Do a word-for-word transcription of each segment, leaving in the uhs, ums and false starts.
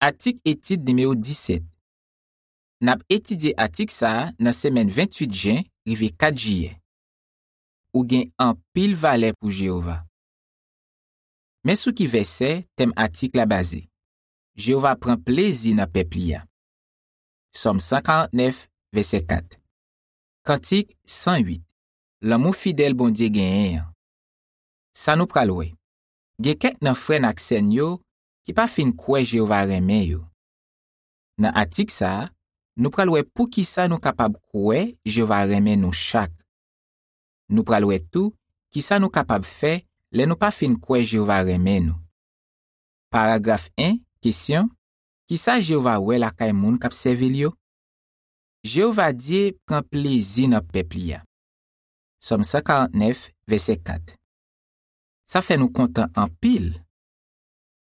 Atik etid nimewo disèt. N ap etidye atik sa a nan semèn venntuit jen rive kat jiyè. Ou gen anpil valè pou Jewova. Men sou ki vèsè tèm atik la baze. Jewova pran plezi nan pèp li a. Sòm san karantnèf, vèsè kat. Kantik san uit. Lanmou fidèl Bondye genyen an. Sa nou pral wè. Gen kèk nan frè n ak sè n yo ki pa fin kwè Jewova renmen yo. Nan atik sa a, nou pral wè poukisa nou kapab kwè Jewova renmen nou chak. Nou pral wè tou kisa nou kapab fè lè nou pa fin kwè Jewova renmen nou. Paragraf en, kesyon, kisa Jewova wè lakay moun k ap sèvi l yo? Jewova Dye pran plezi nan pèp li a. Sòm san karantnèf, vèsè kat. Sa fè nou kontan anpil.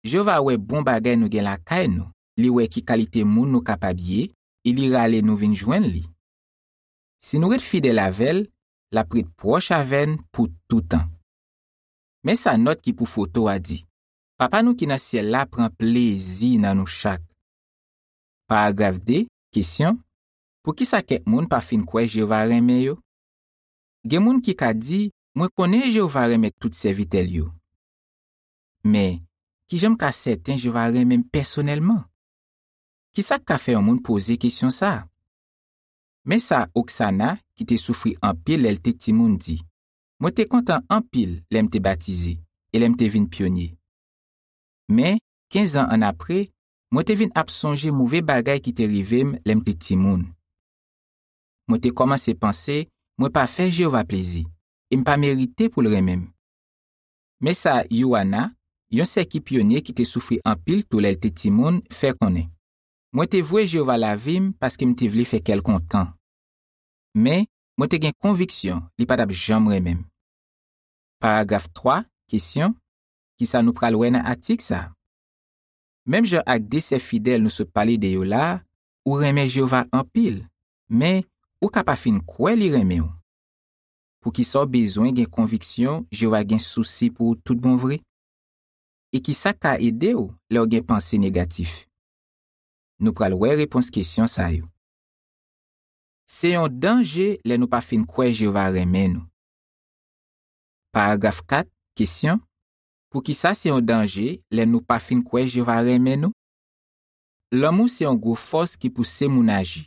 Jewova wè bon bagay nou gen lakay nou, li wè ki kalite moun nou kapab ye, e li rale nou vin jwenn li. Si nou ret fidèl avè l, l ap ret pwòch avè n pou toutan. Men sa nòt ki pou foto a di, Papa nou ki nan syèl la pran plezi nan nou chak. Paragraf de, kesyon, poukisa kèk moun pa fin kwè Jewova renmen yo? Gen moun ki ka di, mwen konnen Jewova renmen tout sèvitè l yo. Men, kijan m ka sèten Jewova renmen m pèsonèlman? Kisa k ka fè yon moun poze kesyon sa a? Men sa Oksana, ki te soufri anpil lè l te timoun, di, mwen te kontan anpil lè m te batize e lè m te vin pyonye. Men, kenz an annapre, mwen te vin ap sonje move bagay ki te rive m lè m te timoun. Mwen te kòmanse panse mwen pa fè Jewova plezi e m pa merite pou l renmen m. Men sa Yoana, yon sè ki pyonye ki te soufri anpil tou lè l te timoun, fè konnen, mwen te vwe Jewova lavi m paske m te vle fè kè l kontan. Men, mwen te gen konviksyon li pa t ap janm renmen m. Paragraf twa, kesyon, kisa nou pral wè nan atik sa a? Menm jan ak de sè fidèl nou sot pale de yo la a, ou renmen Jewova anpil, men ou ka pa fin kwè li renmen w. Poukisa w bezwen gen konviksyon Jewova gen sousi pou ou tout bon vre? E kisa k ka ede w lè w gen panse negatif? Nou pral wè repons kesyon sa yo. Se yon danje lè nou pa fin kwè Jewova renmen nou. Paragraf kat, kesyon, poukisa se yon danje lè nou pa fin kwè Jewova renmen nou? Lanmou se yon gwo fòs ki pouse moun aji.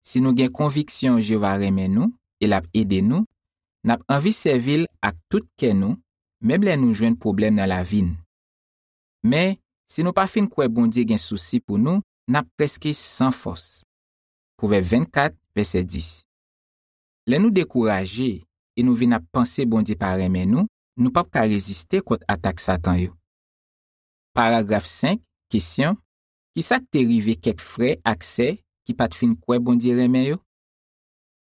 Si nou gen konviksyon Jewova renmen nou e l ap ede nou, n ap anvi sèvi l ak tout kè nou, menm lè nou jwenn pwoblèm nan lavi n. Men, si nou pa fin kwè Bondye gen sousi pou nou, n ap prèske san fòs. Pwovèb vennkat, vèsè dis. Lè nou dekouraje e nou vin ap panse Bondye pa renmen nou, nou p ap ka reziste kont atak Satan yo. Paragraf senk, kesyon, kisa k te rive kèk frè ak sè ki pa t fin kwè Bondye renmen yo?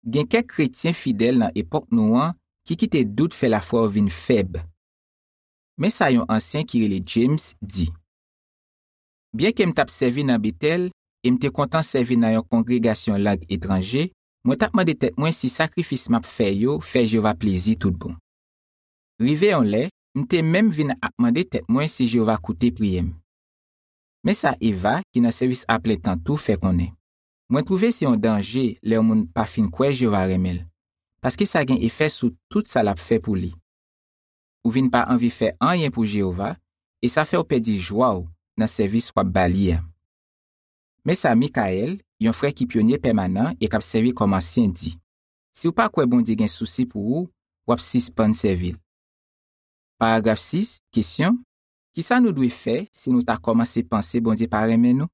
Gen kèk kretyen fidèl nan epòk nou an ki kite dout fè lafwa yo vin fèb. Men sa yon ansyen ki rele James di, byenke m t ap sèvi nan Betèl e m te kontan sèvi nan yon kongregasyon lang etranje, mwen t ap mande tèt mwen si sakrifis m ap fè yo fè Jewova plezi tout bon. Rive yon lè, m te menm vin ap mande tèt mwen si Jewova koute priyè m. Men sa Eva, ki nan sèvis aplentan tou, fè konnen, mwen twouve se yon danje lè yon moun pa fin kwè Jewova renmen l, paske sa gen efè sou tout sa l ap fè pou li. Ou vin pa anvi fè anyen pou Jewova, e sa fè w pèdi jwa w nan sèvis w ap ba li a. Men sa Michael, yon frè ki pyonye pèmanan e k ap sèvi kòm ansyen, di, si w pa kwè Bondye gen sousi pou ou, w ap sispann sèvi l. Paragraf sis, kesyon, kisa nou dwe fè si nou ta kòmanse panse Bondye pa renmen nou?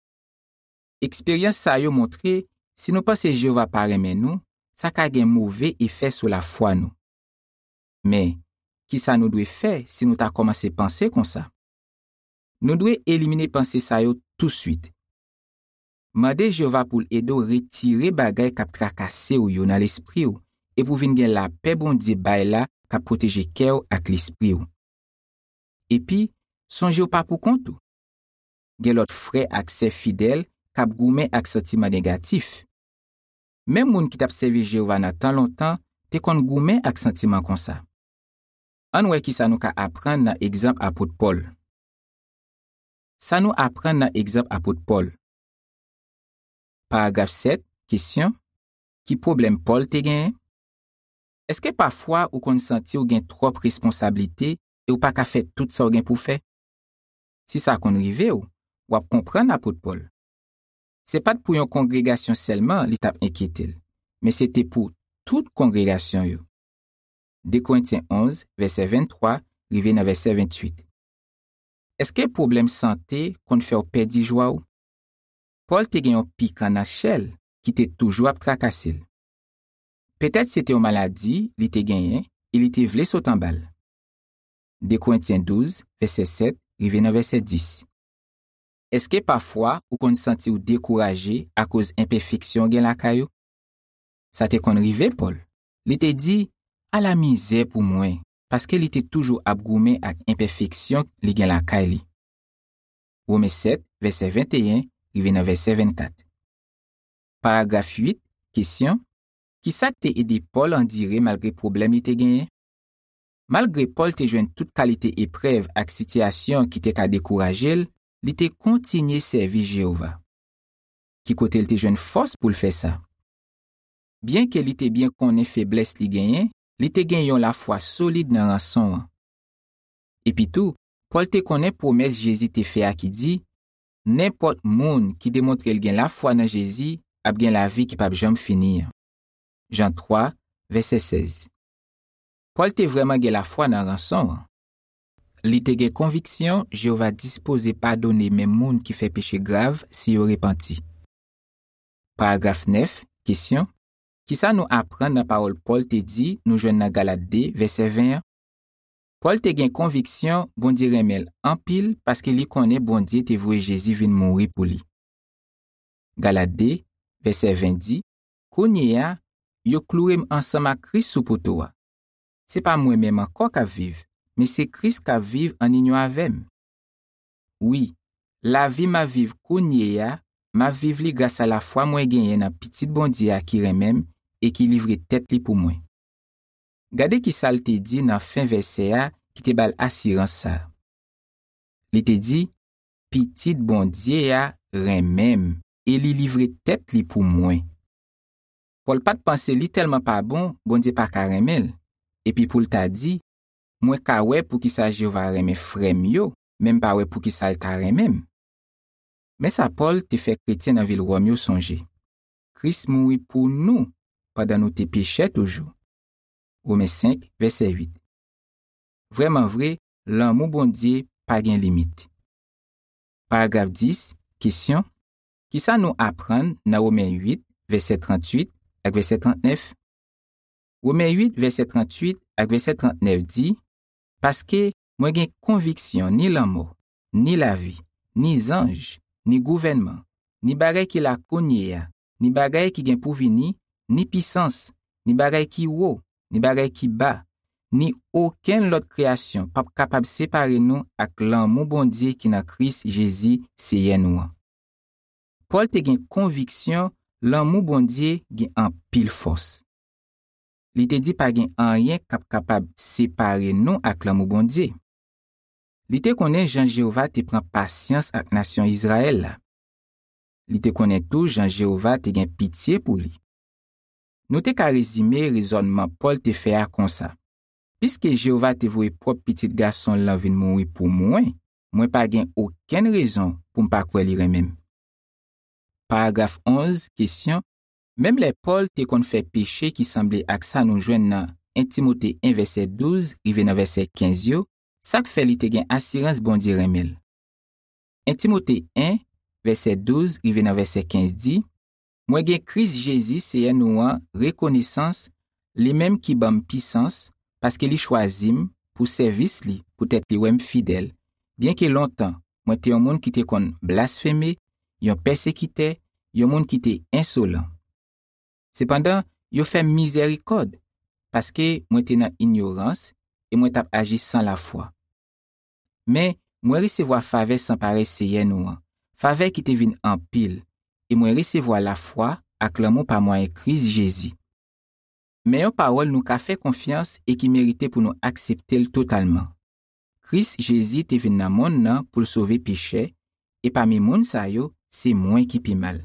Eksperyans sa yo montre, si nou panse Jewova pa renmen nou, sa ka gen move efè sou lafwa nou. Men, kisa nou dwe fè si nou ta kòmanse panse konsa? Nou dwe elimine panse sa yo touswit. Mande Jewova pou l ede w retire bagay k ap trakase w yo nan lespri w e pou w vin gen lapè Bondye bay la k ap pwoteje kè w ak lespri w. Epi, sonje w pa poukont ou. Gen lòt frè ak sè fidèl k ap goumen ak santiman negatif. Menm moun ki t ap sèvi Jewova nan tan lontan te konn goumen ak santiman konsa. Ann wè kisa nou ka aprann nan egzanp apot Pòl. Sa nou aprann nan egzanp apot Pòl? Paragraf sèt, kesyon: ki pwoblèm Pòl te genyen? Èske pafwa ou konn santi w gen twòp responsablite e w pa ka fè tout sa w gen pou w fè? Si sa konn rive w, w ap konprann apot Pòl. Se pa t pou yon kongregasyon sèlman li t ap enkyete l, men se te pou tout kongregasyon yo. De Korentyen onz, vèsè venntwa rive nan vèsè ventuit. Èske pwoblèm sante konn fè w pèdi jwa w? Pòl te gen yon pikan nan chè l ki te toujou ap trakase l. Petèt se te yon maladi li te genyen e li te vle sot anba l. De Korentyen douz, vèsè sèt rive nan vèsè dis. Èske pafwa ou konn santi w dekouraje akoz enpèfeksyon w gen lakay ou? Sa te konn rive Pòl. Li te di, "Ala mizè pou mwen," paske li te toujou ap goumen ak enpèfeksyon li gen lakay li. Women sèt, vèsè venteyen rive nan vèsè vennkat. Paragraf uit, kesyon: ki sa k te ede Pòl andire malgre pwoblèm li te genyen? Malgre Pòl te jwenn tout kalite eprèv ak sitiyasyon ki te ka dekouraje l, li te kontinye sèvi Jewova. Ki kote l te jwenn fòs pou l fè sa? Byenke li te byen konnen feblès li genyen, li te gen yon lafwa solid nan ranson an. Epitou, Pòl te konnen pwomès Jezi te fè a ki di, "Nenpòt moun ki demontre l gen lafwa nan Jezi ap gen lavi ki p ap janm fini an." Jan twa, vèsè sèz. Pòl te vrèman gen lafwa nan ranson an. Li te gen konviksyon Jewova dispoze padone menm moun ki fè peche grav si yo repanti. Paragraf nèf, kesyon: ki sa nou aprann nan pawòl Pòl te di nou jwenn nan Galat de, vèsè ven an? Pòl te gen konviksyon Bondye renmen l anpil paske li konnen Bondye te voye Jezi vin mouri pou li. Galat de, vèsè ven di, "Kounye a, yo kloure m ansanm ak Kris sou poto a. Se pa mwen menm ankò k ap viv, men se Kris k ap viv ann inyon avè m. Wi, lavi m ap viv kounye a, m ap viv li gras a lafwa mwen genyen nan Pitit Bondye a ki renmen m e ki livre tèt li pou mwen." Gade ki sa l te di nan fen vèsè a ki te ba l asirans sa a. Li te di, "Pitit Bondye a renmen m e li livre tèt li pou mwen." Pòl pa t panse li tèlman pa bon, Bondye pa ka renmen l, epi pou l ta di, "Mwen ka wè poukisa Jewova renmen frè m yo, men m pa wè poukisa l ta renmen m." Men sa Pòl te fè kretyen nan vil Wòm yo sonje: "Kris mouri pou nou pandan nou te pechè toujou." Women senk, vèsè uit. Vrèman vre, lanmou Bondye pa gen limit. Paragraf dis, kesyon: ki sa nou aprann nan Women uit, vèsè trantuit ak vèsè trantnèf? Women uit, vèsè trantuit ak vèsè trantnèf di, "Paske mwen gen konviksyon ni lanmò, ni lavi, ni zanj, ni gouvènman, ni bagay ki la kounye a, ni bagay ki gen pou vini, ni pisans, ni bagay ki wo, ni bagay ki ba, ni okenn lòt kreyasyon p ap kapab separe nou ak lanmou Bondye ki nan Kris Jezi, Seyè nou an." Pòl te gen konviksyon lanmou Bondye gen anpil fòs. Li te di pa gen anyen k ap kapab separe nou ak lanmou Bondye. Li te konnen jan Jewova te pran pasyans ak nasyon Izrayèl la. Li te konnen tou jan Jewova te gen pitye pou li. Nou te ka rezime rezònman Pòl te fè a konsa: "Piske Jewova te voye pwòp Pitit Gason l lan vin mouri pou mwen, mwen pa gen okenn rezon pou m pa kwè li renmen m." Paragraf onz, kesyon: menm lè Pòl te konn fè peche ki sanble ak sa nou jwenn nan en Timote en vèsè douz rive nan vèsè kenz yo, sa k fè li te gen asirans Bondye renmen l? En Timote en, vèsè douz rive nan vèsè kenz di, "Mwen gen Kris Jezi, Seyè nou an, rekonesans, li menm ki ban m pisans, paske li chwazi m pou sèvis li, poutèt li wè m fidèl, byenke lontan mwen te yon moun ki te konn blasfeme, yon pèsekitè, yon moun ki te ensolan. Sepandan, yo fè m mizèrikòd, paske mwen te nan inyorans e mwen t ap aji san lafwa. Men, mwen resevwa favè san parèy Seyè nou an, favè ki te vin anpil, e mwen resevwa lafwa ak lanmou pa mwayen Kris Jezi." Men yon pawòl nou ka fè konfyans e ki merite pou nou aksepte l totalman. Kris Jezi te vin nan monn nan pou l sove pechè, e pami moun sa yo, se mwen ki pi mal.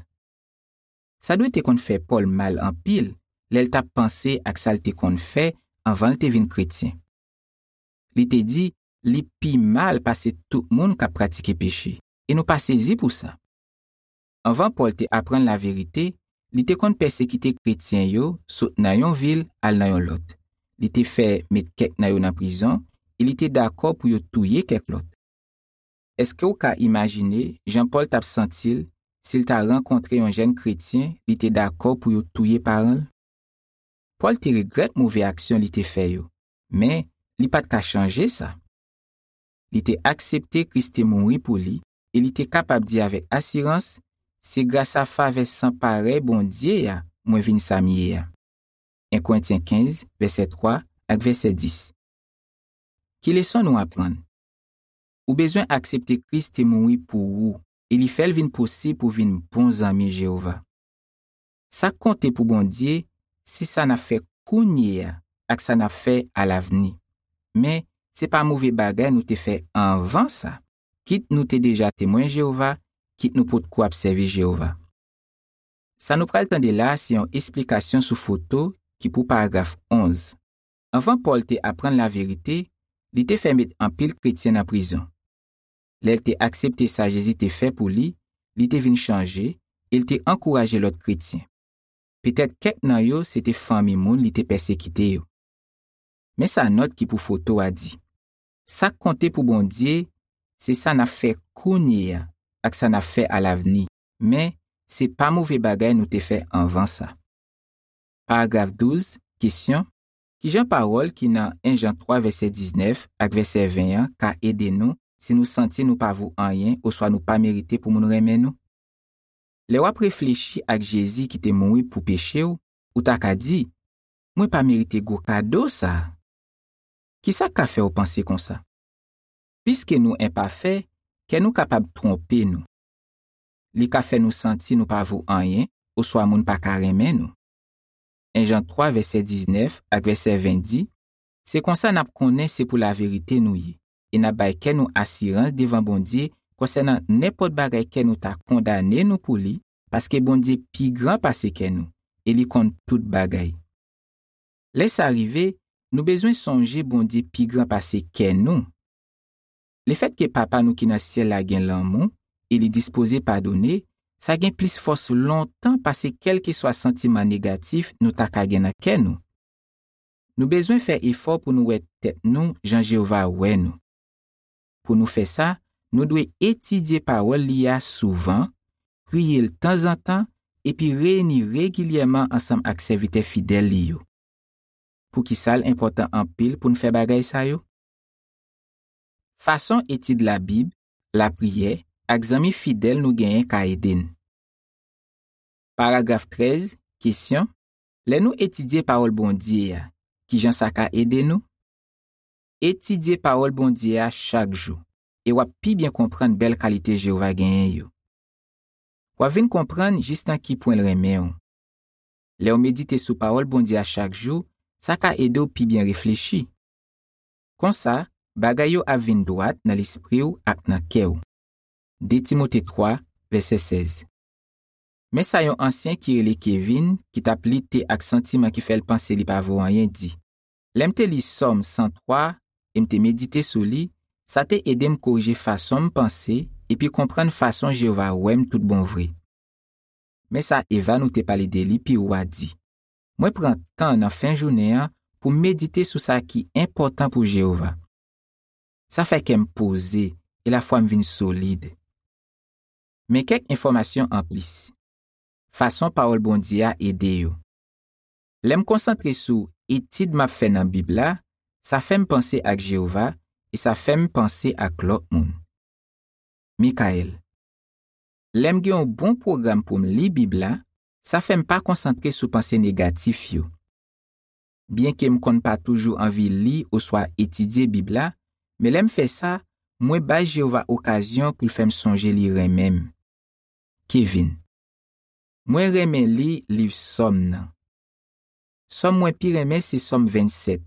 Sa dwe te konn fè Pòl mal anpil lè l t ap panse ak sa l te konn fè anvan l te vin kretyen. Li te di li pi mal pase tout moun k ap pratike peche, e nou pa sezi pou sa. Anvan Pòl te aprann laverite, li te konn pèsekite kretyen yo sot nan yon vil al nan yon lòt. Li te fè met kèk nan yo nan prizon, e li te dakò pou yo touye kèk lòt. Èske w ka imajine jan Pòl t ap santi l si l ta rankontre yon jèn kretyen li te dakò pou yo touye paran l? Pòl te regrèt move aksyon li te fè yo, men li pa t ka chanje sa. Li te aksepte Kris te mouri pou li e li te kapab di avèk asirans, "Se gras a favè san parèy Bondye a mwen vin sa m ye a." En Korentyen kenz, vèsè twa ak vèsè dis. Ki leson nou aprann? Ou bezwen aksepte Kris te mouri pou ou e li fè l vin posib pou w vin bon zanmi Jewova. Sa k konte pou Bondye, se sa n ap fè kounye a ak sa n ap fè alavni. Men, se pa move bagay nou te fè anvan sa, kit nou te deja Temwen Jewova, kit nou potko ap sèvi Jewova. Sa nou pral tande la a se yon esplikasyon sou foto ki pou paragraf onz. Anvan Pòl te aprann laverite, li te fè met anpil kretyen nan prizon. Lè l te aksepte sa Jezi te fè pou li, li te vin chanje e l te ankouraje lòt kretyen. Petèt kèk nan yo se te fanmi moun li te pèsekite yo. Men sa nòt ki pou foto a di. Sa k konte pou Bondye, se sa n ap fè kounye a ak sa n ap fè alavni, men se pa move bagay nou te fè anvan sa. Paragraf douz, kesyon, ki jan pawòl ki nan en Jan twa vèsè diznèf ak vèsè ven an ka ede nou si nou santi nou pa vo anyen oswa nou pa merite pou moun renmen nou? Lè w ap reflechi ak Jezi ki te mouri pou peche w, ou ta ka di, "Mwen pa merite gwo kado sa a." Ki sa k ka fè w panse konsa? Piske nou enpafè, kè nou kapab twonpe nou. Li ka fè nou santi nou pa vo anyen oswa moun pa ka renmen nou. En Jan twa vèsè diznèf ak vèsè ven di, "Se konsa n ap konnen se pou laverite nou ye, e n ap bay kè nou asirans devan Bondye konsènan nenpòt bagay kè nou ta kondane nou pou li, paske Bondye pi gran pase kè nou, e li konn tout bagay." Lè sa rive, nou bezwen sonje Bondye pi gran pase kè nou. Lefètke Papa nou ki nan syèl la gen lanmou e li dispoze padone, sa gen plis fòs lontan pase kèlkeswa santiman negatif nou ta ka gen nan kè nou. Nou bezwen fè efò pou nou wè tèt nou jan Jewova wè nou. Pou nou fè sa, nou dwe etidye pawòl li a souvan, priye l tanzantan, epi reyini regilyèman ansanm ak sèvitè fidèl li yo. Poukisa l enpòtan anpil pou n fè bagay sa yo? Fason etid Labib, lapriyè, ak zanmi fidèl nou genyen ka ede n. Paragraf trèz, kesyon, lè nou etidye pawòl Bondye a, ki jan sa ka ede nou? Etidye pawòl Bondye a chak jou, e w ap pi byen konprann bèl kalite Jewova genyen yo. W ap vin konprann jis nan ki pwen l renmen w. Lè w medite sou pawòl Bondye a chak jou, sa ka ede w pi byen reflechi. Konsa, bagay yo ap vin dwat nan lespri w ak nan kè w. De Timote twa, vèsè sèz. Men sa yon ansyen ki rele Kevin, ki t ap lite ak santiman ki fè l panse li pa vo anyen, di, "Lè m te li Sòm san twa e m te medite sou li, sa te ede m korije fason m panse epi konprann fason Jewova wè m tout bon vre." Men sa Eva nou te pale de li pi wo a di, "Mwen pran tan nan fen jounen an pou m medite sou sa ki enpòtan pou Jewova. Sa fè kè m poze e lafwa m vin solid." Men kèk enfòmasyon anplis. Fason pawòl Bondye a ede yo. Lè m konsantre sou etid m ap fè nan Bib la, sa fè m panse ak Jewova e sa fè m panse ak lòt moun. Mikayèl. Lè m gen yon bon pwogram pou m li Bib la, sa fè m pa konsantre sou panse negatif yo. Byenke m konn pa toujou anvi li oswa etidye Bib la, men lè m fè sa, mwen bay Jewova okazyon pou l fè m sonje li renmen m. Kevin. Mwen renmen li liv Sòm nan. Sòm mwen pi renmen se Sòm vennsèt.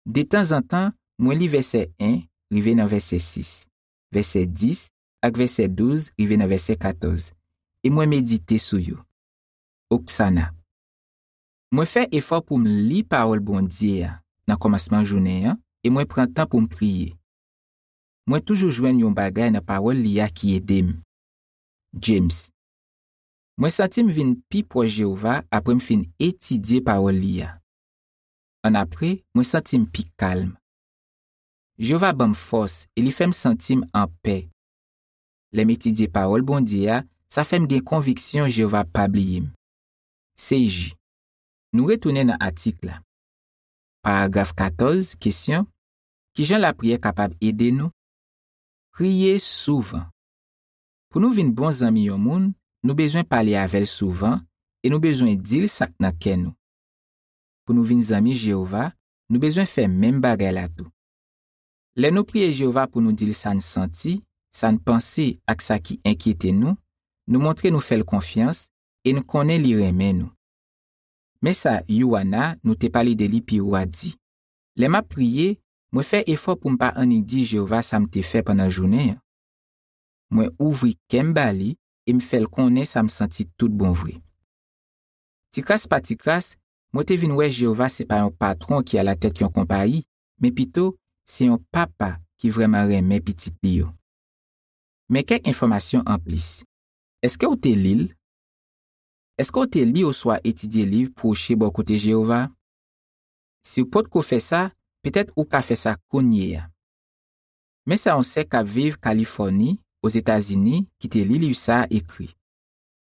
Detanzantan, mwen li vèsè en rive nan vèsè sis, vèsè dis ak vèsè douz rive nan vèsè katòz, e mwen medite sou yo. Oksana. Mwen fè efò pou m li pawòl Bondye a nan kòmansman jounen an, e mwen pran tan pou m priye. Mwen toujou jwenn yon bagay nan pawòl li a ki ede m. James. Mwen santi m vin pi pwòch Jewova apre m fin etidye pawòl li a. Annapre, mwen santi m pi kalm. Jewova ban m fòs e li fè m santi m anpè. Lè m etidye pawòl Bondye a, sa fè m gen konviksyon Jewova pa bliye m. Seiji. Nou retounen nan atik la. Paragraf katòz, kesyon: ki jan lapriyè kapab ede nou? Priye souvan. Pou nou vin bon zanmi yon moun, nou bezwen pale avè l souvan e nou bezwen di l sa k nan kè nou. Pou nou vin zanmi Jewova, nou bezwen fè menm bagay la tou. Lè nou priye Jewova pou nou di l sa n santi, sa n panse ak sa ki enkyete nou, nou montre nou fè l konfyans e n konnen li renmen nou. Men sa Yuana, nou te pale de li pi wo a, di: lè m ap priye, mwen fè efò pou m pa annik di Jewova sa m te fè pandan jounen an. Mwen ouvri kè m ba li e m fè l konnen sa m santi toutbonvre. Tikras pa tikras, mwen te vin wè Jewova se pa yon patwon ki alatèt yon konpayi, men pito, se yon papa ki vrèman renmen pitit li yo. Men kèk enfòmasyon anplis. Èske w te li l? Èske w te li oswa etidye liv Pwoche bò kote Jewova? Si w potko fè sa, petèt ou ka fè sa kounye a. Men sa yon sè k ap viv Kalifòni, Ozetazini, ki te li liv sa a ekri: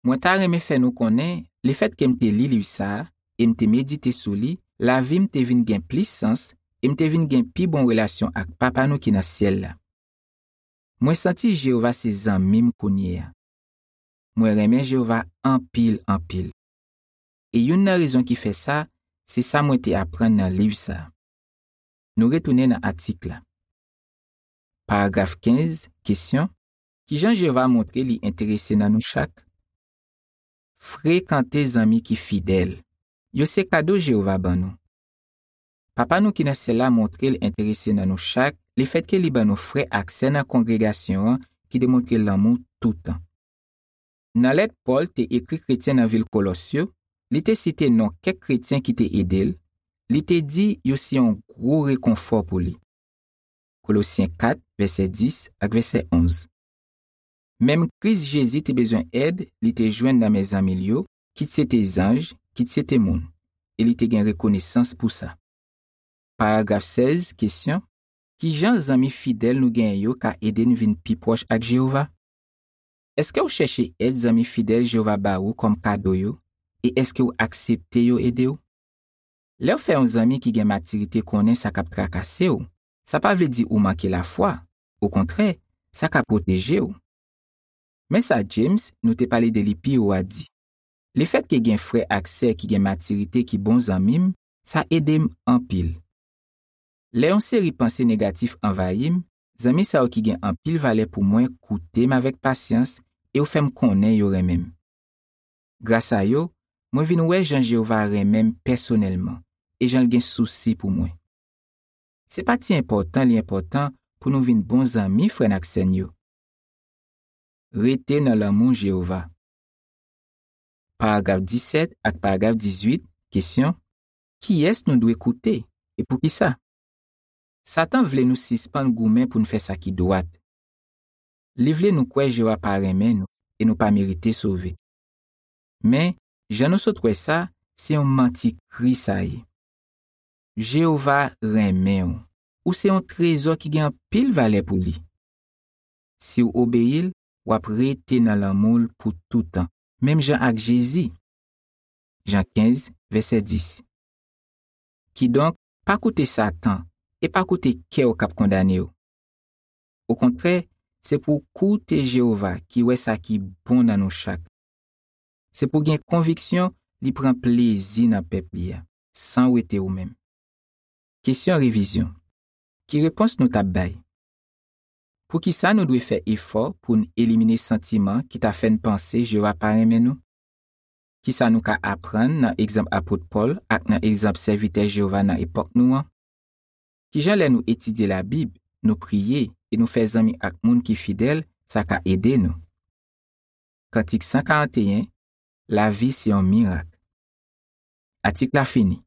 mwen ta renmen fè nou konnen, lefètke m te li liv sa a e m te medite sou li, lavi m te vin gen plis sans e m te vin gen pi bon relasyon ak Papa nou ki nan syèl la. Mwen santi Jewova se zanmi m kounye a. Mwen renmen Jewova anpil, anpil. E youn nan rezon ki fè sa, se sa mwen te aprann nan liv sa a. Nou retounen nan atik la. Paragraf kenz, kesyon: ki jan Jewova montre li enterese nan nou chak? Frekante zanmi ki fidèl. Yo se kado Jewova ban nou. Papa nou ki nan syèl la montre l enterese nan nou chak lefètke li ban nou frè ak sè nan kongregasyon an ki demontre lanmou toutan. Nan lèt Pòl te ekri kretyen nan vil Kolòs yo, li te site non kèk kretyen ki te ede l, li te di yo se yon gwo rekonfò pou li. Kolosyen kat, vèsè dis ak vèsè onz. Menm Kris Jezi te bezwen èd li te jwenn nan men zanmi l yo, kit se te zanj, kit se te moun, e li te gen rekonesans pou sa. Paragraf sèz, kesyon: ki jan zanmi fidèl nou genyen yo ka ede n vin pi pwòch ak Jewova? Èske w chèche èd zanmi fidèl Jewova ba ou kòm kado yo, e èske w aksepte yo ede w? Lè w fè yon zanmi ki gen matirite konnen sa k ap trakase w, sa pa vle di ou manke lafwa. Okontrè, sa ka pwoteje w. Men sa James, nou te pale de li pi wo a, di: lefètke gen frè ak sè ki gen matirite ki bon zanmi m, sa ede m anpil. Lè yon seri panse negatif anvayi m, zanmi sa yo ki gen anpil valè pou mwen koute m avèk pasyans e yo fè m konnen yo renmen m. Gras a yo, mwen vin wè jan Jewova renmen m pèsonèlman e jan l gen sousi pou mwen. Se pa ti enpòtan li enpòtan pou nou vin bon zanmi frè n ak sè n yo. Rete nan lanmou Jewova. Paragraf disèt ak paragraf dizuit, kesyon: kiyès nou dwe koute, e poukisa? Satan vle nou sispann goumen pou n fè sa ki dwat. Li vle nou kwè Jewova pa renmen nou e nou pa merite sove. Men, jan nou sot wè sa, se yon manti kri sa ye. Jewova renmen w. Ou se yon trezò ki gen anpil valè pou li. Si w obeyi l, w ap rete nan lanmou l pou toutan, menm jan ak Jezi. Jan kenz, vèsè dis. Kidonk, pa koute Satan e pa koute kè w k ap kondane w. Okontrè, se pou w koute Jewova ki wè sa ki bon nan nou chak. Se pou w gen konviksyon li pran plezi nan pèp li a, san wete ou menm. Kesyon revizyon. Ki repons nou t ap bay? Poukisa nou dwe fè efò pou n elimine santiman ki ta fè n panse Jewova pa renmen nou? Kisa nou ka aprann nan egzanp apot Pòl ak nan egzanp sèvitè Jewova nan epòk nou an? Kijan lè nou etidye Labib, nou priye e nou fè zanmi ak moun ki fidèl, sa ka ede nou. Kantik san karanteyen, Lavi se yon mirak. Atik la fini.